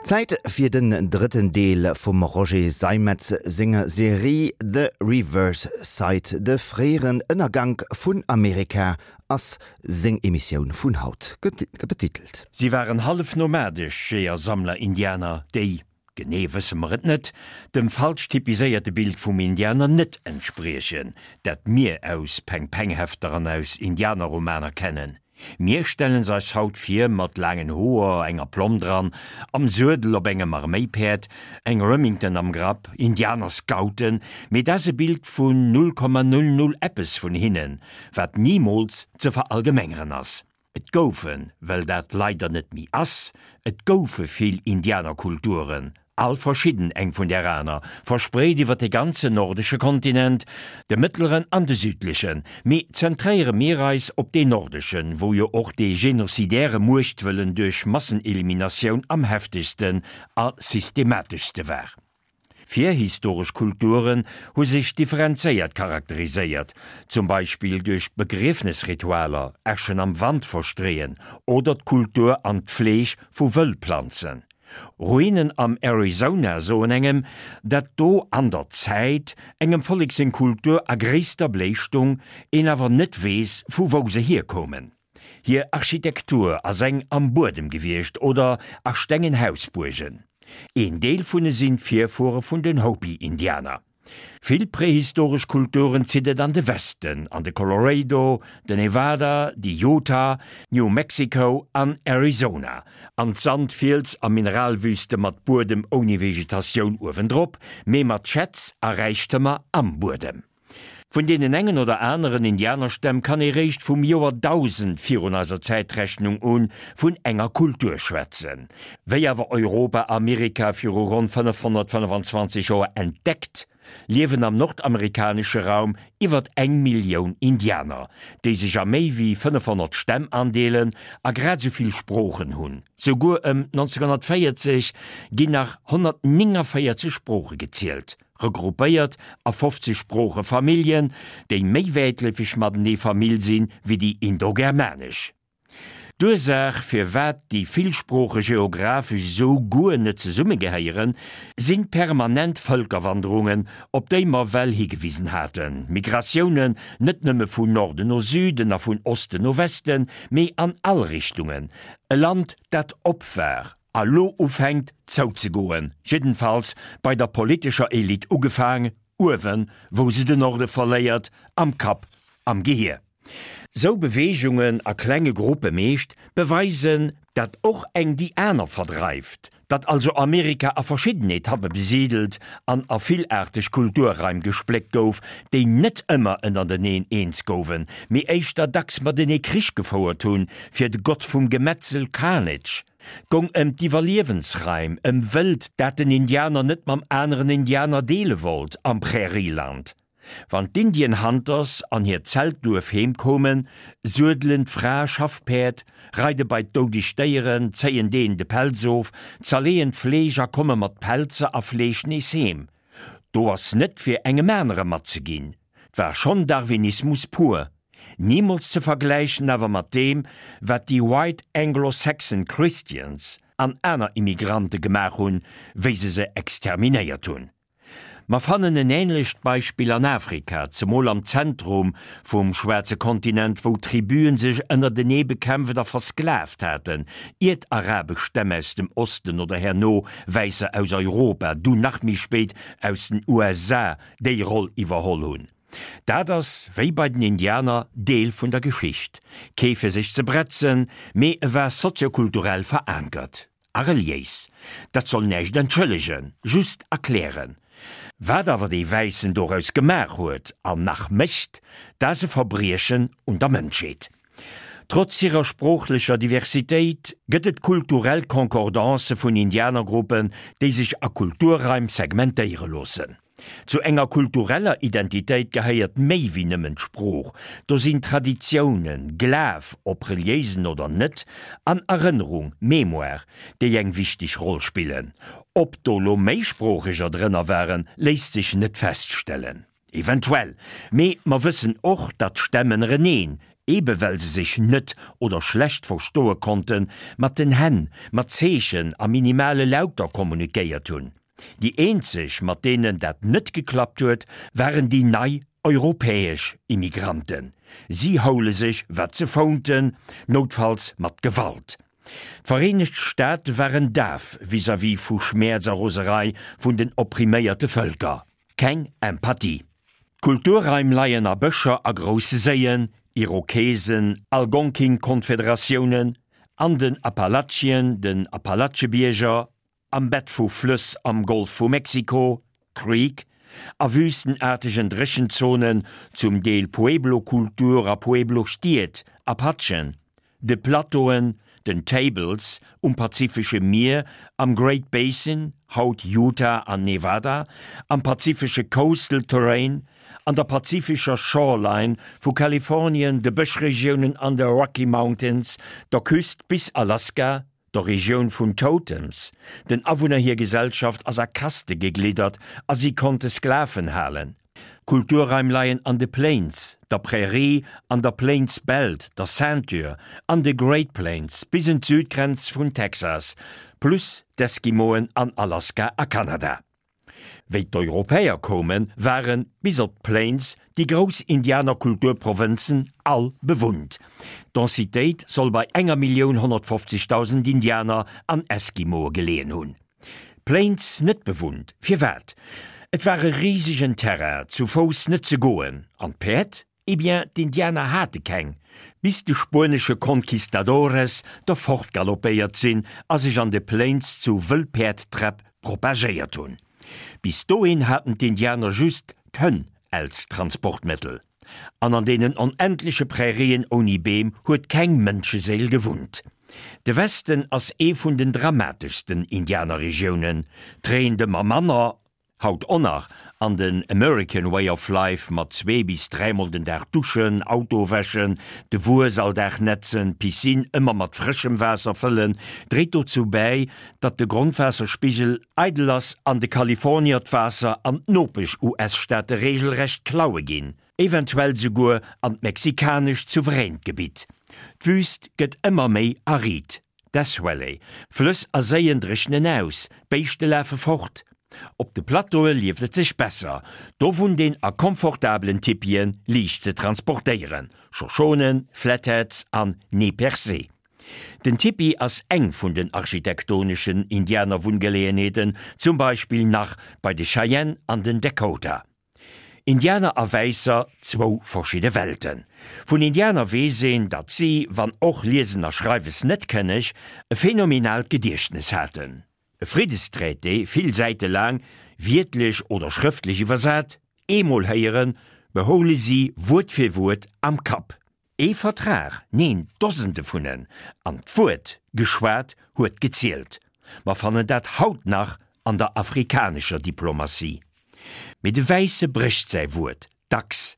Zäit fir den drëtten Deel vum Roger Seimetz senger Serie The Reverse Side, de fréieren Ënnergank vun Amerika ass seng Emissioun vun haut betitelt. Si waren hallef nomadesch Jeeër-Sammler-Indianer, déi, genee wësse mer et net, dem falsch typiséierte Bild vum Indianer net entspriechen, dat mir aus Peng-Peng-Hefter an aus Indianerromaner kennen. Mir stellen se eis haut vir mat laangen Hoer, enger Plomm dran, am Suedel op engem Arméipäerd, eng Remington am Grapp, Indianerscouten, mee dat ass e Bild vun 0,00 eppes vun hinnen, wat nimools ze verallgemengeren ass. Et goufen, well dat leider net méi ass, et goufe vill Indianerkulturen, all verschidden eng vun där aner, verspreet iwwer de ganzen nordesche Kontinent, de mëttleren an de südlechen. Mee zentréiere mir eis op deen nordeschen, wou jo och dee genocidäre Muechtwëllen duerch Masseneliminatioun am heftegsten a systemateschste war. Virhistoresch Kulturen hu sech differenzéiert charakteriséiert, zum Beispill duerch Begriefnesritualer, Äschen am Wand verstreeën oder d'Kultur an d'Fleeg vu Wëllplanzen. Ruinen am Arizona soen engem, dat do an der Zäit engem Vollek seng Kultur a gréisster Bléi stung, een awer net weess vu wou se hierkoumen. Hir Architektur ass eng am Buedem gewiescht oder a stengen Hausbuergen. Een Deel vun e sinn d'Virfuere vun den Hopi-Indianer. Vill prehistoresch Kulturen zitt et an de Westen, an de Colorado, de Nevada, déi Utah, New Mexico an Arizona, an d'Sand-, Fiels a Mineralwüste mat Buedem ouni Vegetatioun uewendrop, mee mat Schätz a Räichtëmer am Buedem. Vun deenen engen oder aneren Indianerstämm kann ee réischt vum Joer 1000 virun eiser Zäitrechnung un vun enger Kultur schwätzen. Wéi awer Europa Amerika viru ronn 525 Joer entdeckt, liewen am nordamerikanesche Raum iwwert eng Millioun Indianer, déi sech a méi wéi 500 Stämm andeelen a grad esou vill Sproochen hunn. Souguer ëm 1940 ginn nach 149 Sprooche gezielt. Regroupéiert a 50 Sproochefamilljen, déi méi wäitleefeg matenee Famill sinn, wéi déi indogermanesch. D'Ursaach, firwat déi vill Sprooche geographesch esou guer net zesummegehéieren, sinn d'permanent Vëlkerwanderungen, op déi mer well higewisen haten, Migratiounen net nëmme vun Norden no Süden a vun Osten no Westen, mee an all Richtungen, e Land, dat op war a lo ufänkt zouzegoen, jiddenfalls bei der politescher Elite ugefaang, uewen, wou se den Norde verléiert, am Kapp, am Gehier. Sou Beweegungen, a klenge Gruppe meescht, beweisen, dat och eng déi aner verdreift, datt also Amerika a verschidden Etappe besidelt an a villaarteg Kulturraim gespléckt gouf, déi net ëmmer ënnerteneen eens gouwen, mee éischter dacks matenee Krich gefouert hunn, fir de Gott vum Gemetzel Carnage 't gong ëm d'Iwwerliewensraim, ëm Wëld, dat den Indianer net mam aneren Indianer deele wollt am Prärieland. Wann d'Indian Hunters an hiert Zeltduerf heem koumen, suedelen d'Frae Schaffpäerd, reide bei d'doudeg Déieren, zéien deenen de Pelz of, zerleeën d'Fleesch a komme mat Pelzer a Fleesch nees heem. Do ass net fir engem anere matzeginn. 't war schonn Darwinismus pur. Nimools ze vergläichen awer mat deem, wat déi White Anglo-Saxon Christians an aner Immigrante gemaach hunn, wéi se se exterminéiert hunn. Mer fannen en änlecht Beispill an Afrika, zemol am Zentrum vum schwaarze Kontinent, wou Tribuen sech ënnertenee bekämpft a versklavt haten, iert arabesch Stämm aus dem Osten oder herno Wäisser aus Europa, dunn nach méi spéit aus den USA déi Roll iwwerholl hunn. Dat ass, wéi bei den Indianer, Deel vun der Geschicht. Kee fir sech ze bretzen, mee e war soziokulturell verankert. A reliéis. Dat soll näischt entschëllegen, just erklären. Wat awer dee Wäissen doraus gemaach huet, an nach mécht, dat ass e Verbriechen un der Mënschheet. Trotz hirer sproochlecher Diversitéit gëtt et kulturell Concordancë vun Indianergruppen, déi sech a Kulturraim segmentéiere loossen. Zu enger kultureller Identitéit gehéiert méi wéi nëmmen d'Sprooch, do sinn Traditiounen, Glaf, ob reliéisen oder net, an Erënnerung, Mémoire, déi eng wichteg Roll spillen. Ob do lo Méisproocheger drënner waren, léisst sech net feststellen. Eventuell. Mee mer wëssen och, datt d'Stämm ënnereneen. ebe well se sech net oder schlecht verstoe konnten, mat den Hänn, mat Zeechen a minimale Lauter kommunikéiert hunn. Déi eenzeg, mat deenen dat net geklappt huet, waren déi nei europäesch Immigranten. Si houle sech, wat se founten, noutfalls mat Gewalt. D'Vereenegt Staate waren daf vis-à-vis vu Schmäerz a Roserei vun den oppriméierte Vëlker. Keng Empathie. D'Kulturraim leien a Bëscher a grousse Séien, Irokesen, Algonkin-Konfederatiounen, an den Appalachien, den Appalachebierger, am Bett vu Flëss am Golf vu Mexiko, Creek, a wüstenaartegen Dréchenzonen, zum Deel Pueblo-Kultur a Pueblo-Stied, Apachen, de Plateauen, den Tables, um Pazifesche Mier, am Great Basin, haut Utah an Nevada, am pazifesche Coastal Terrain, an der pazifescher Shoreline vu Kalifornien, de Bëschregiounen an de Rocky Mountains, der Küst bis Alaska, der Regioun vun Totems. Den Awunner hir Gesellschaft ass a Kaste gegliddert a si konnte Sklaven halen. Kulturraim leien an de Plains, der Prärie, an der Plains Belt, der Ceinture, an de Great Plains bis en d'Südgrenz vun Texas, plus d'Eskimoen an Alaska a Kanada. Wéi d'Europäer koumen, waren, bis op d'Plains, déi grouss Indianerkulturprovënzen all bewunnt. D'Densitéit soll bei enger 1.150.000 Indianer an Eskimoe geleeën hunn. D'Plains net bewunnt, firwat? Et war e risegen Terrain, zu Fouss net ze goen. An d'Päerd? Eh bien, d'Indianer hate keng, bis de spuenesche Conquistadores der fortgaloppéiert sinn a sech an de Plains zu Wëllpäerdträpp propagéiert hunn. Bis dohin haten d'Indianer just d'Hënn als Transportmëttel. An an deenen onendleche Prärien ouni Beem huet keng Mënscheséil gewunnt. De Westen ass ee vun den dramateschsten Indianerregiounen, 't reent ëmmer manner, Haut och nach, an den American Way of Life mat zwee bis dräimol den Dag duschen, Auto wäschen, de Wues all Dag netzen, d'Piscine ëmmer mat frëschem Waasser fëllen, dréit dozou bäi, datt de Grondwaasserspigel eidel ass an de Kalifornier d'Waasser an d'Nopesch-US-Staate reegelrecht klaue ginn, eventuell souguer an d'mexikanescht souveränt Gebitt. D'Wüüst gëtt ëmmer méi arid. Death Valley, Flëss a Séien dréchnen aus, d'Béischte lafe fort. Op de Plateaue lieft et sech besser, do wunnt een a komfortabelen Tipien, liicht ze transportéieren, Shoshonen, Flatheads an Nez Percé. Den Tipi ass eng vun den architektoneschen Indianerwunngeleeënheeten, zum Beispill nach bei de Cheyenne an den Dakota. Indianer a Wäisser, zwou verschidde Welten. Vun Indianer weess een, datt si, wann och Liesen a Schreiwes net kënneg, e phänomenaalt Gediechtnes haten. E Friddestraité, vill Säite laang, wiertlech oder schrëftlech iwwersat, eemol héieren, behoule si Wuert fir Wuert am Kapp. Ee Vertrag, neen, Dosende vun en, an d'Wuert geschwat huet gezielt. Mer fannen dat haut nach an der afrikanescher Diplomatie. Mee de Wäisse brécht säi Wuert, dacks.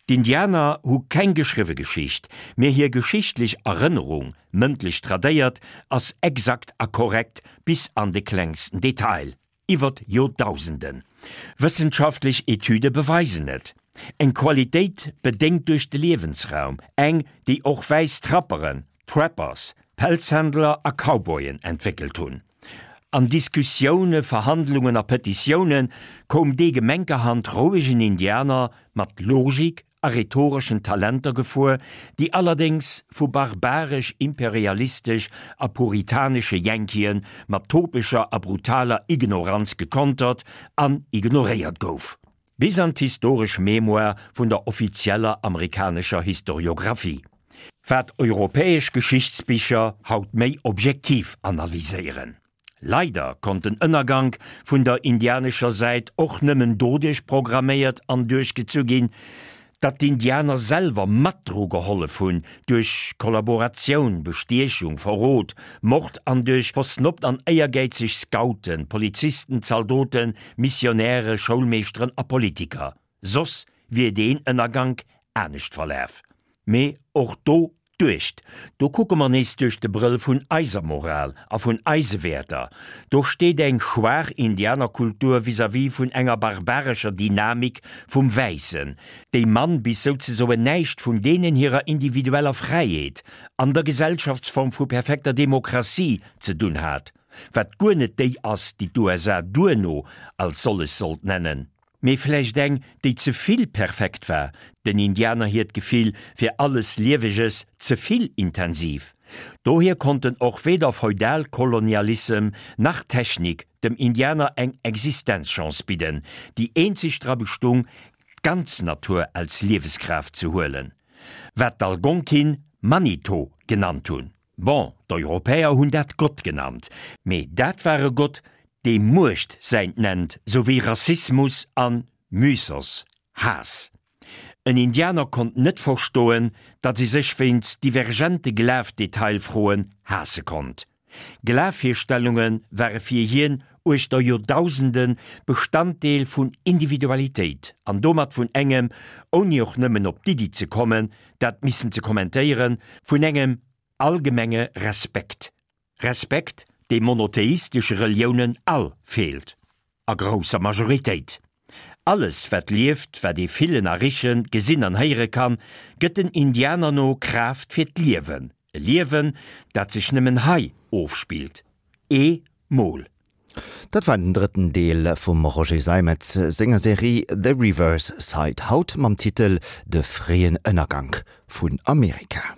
D'Indianer hu keng geschriwwe Geschicht, mee hir geschichtlech Erënnerung, mëndlech tradéiert, ass exakt a korrekt bis an de klengsten Detail. Iwwert Joerdausenden. Wëssenschaftlech Etüde beweisen et. Eng Qualitéit bedéngt duerch de Liewensraum, eng, déi och wäiss Trapperen, Trappers, Pelzhändler a Cowboyen entwéckelt hunn. An Diskussioune, Verhandlungen a Petitioune koum dee gemenkerhand rouegen Indianer mat Logik, a rhetoreschen Talenter gefuer, déi allerdéngs vu barbaresch-imperialistesch a puritanesche Yankeeë mat topescher a brutaler Ignoranz gekontert an ignoréiert gouf, bis an d'historesch Mémoire vun der offizieller amerikanescher Historiographie, wat europäesch Geschichtsbicher haut méi objektiv analyséieren. Leider konnt den Ënnergank vun der indianescher Säit och nëmmen doduerch programméiert an duerchgezu ginn, datt d'Indianer selwer mat dru gehollef hunn, duerch Kollaboratioun, Bestiechung, Verrot, Mord an duerch versnobbt an éiergäizeg Scouten, Polizisten, Zaldoten, Missionäre, Schoulmeeschteren a Politiker. Soss wier deen Ënnergank anescht verlaf. Mee och do. Duecht, do kucke mer nees duerch de Brëll vun eiser Moral a vun eise Wäerter. Do steet eng schwaach Indianerkultur vis-à-vis vun enger barbarescher Dynamik vum Wäissen, déi mann bis souzesoen näischt vun deenen hirer individueller Fräiheet an der Gesellschaftsform vu perfekter Demokratie ze dunn hat, wat guer net déi ass, déi d'USA duerno als sollech sollt nennen. Mee vläicht eng, déi ze vill perfekt war, den Indianer hiert Gefill fir alles Lieweges ze vill intensiv. Dohier konnten och weder Feudalkolonialissem nach Technik dem Indianer eng Existenzchance bidden, déi eenzeg dra bestung, d'ganz Natur als Lieweskraaft ze huelen, wat d'Algonkin Manitou genannt hunn. Bon, d'Europäer hunn dat Gott genannt, mee dat war e Gott, dee Muecht säint nennt, sou wéi Rassismus an Mythos, Haass. En Indianer konnt net verstoen, datt ee sech wéinst divergente Glafdetailfroen haasse konnt. Glafvirstellunge ware fir hien uechter Joerdausende Bestanddeel vun Individualitéit an domat vun engem, ouni och nëmmen op d'Iddi ze kommen, dat missen ze kommentéieren, vun engem allgemenge Respekt. Respekt, dee monotheistesche Reliounen all feelt. A grousser Majoritéit. Alles, wat lieft, wat ee fillen a richen, gesinn an héiere kann, gëtt den Indianer no Kraaft fir d'Liewen. E Liewen, dat sech nëmmen hei ofspillt. Ee Mol. Dat war den drëtten Deel vum Roger Seimetz senger Serie The Reverse Side, haut mam Titel De fréien Ënnergank vun Amerika.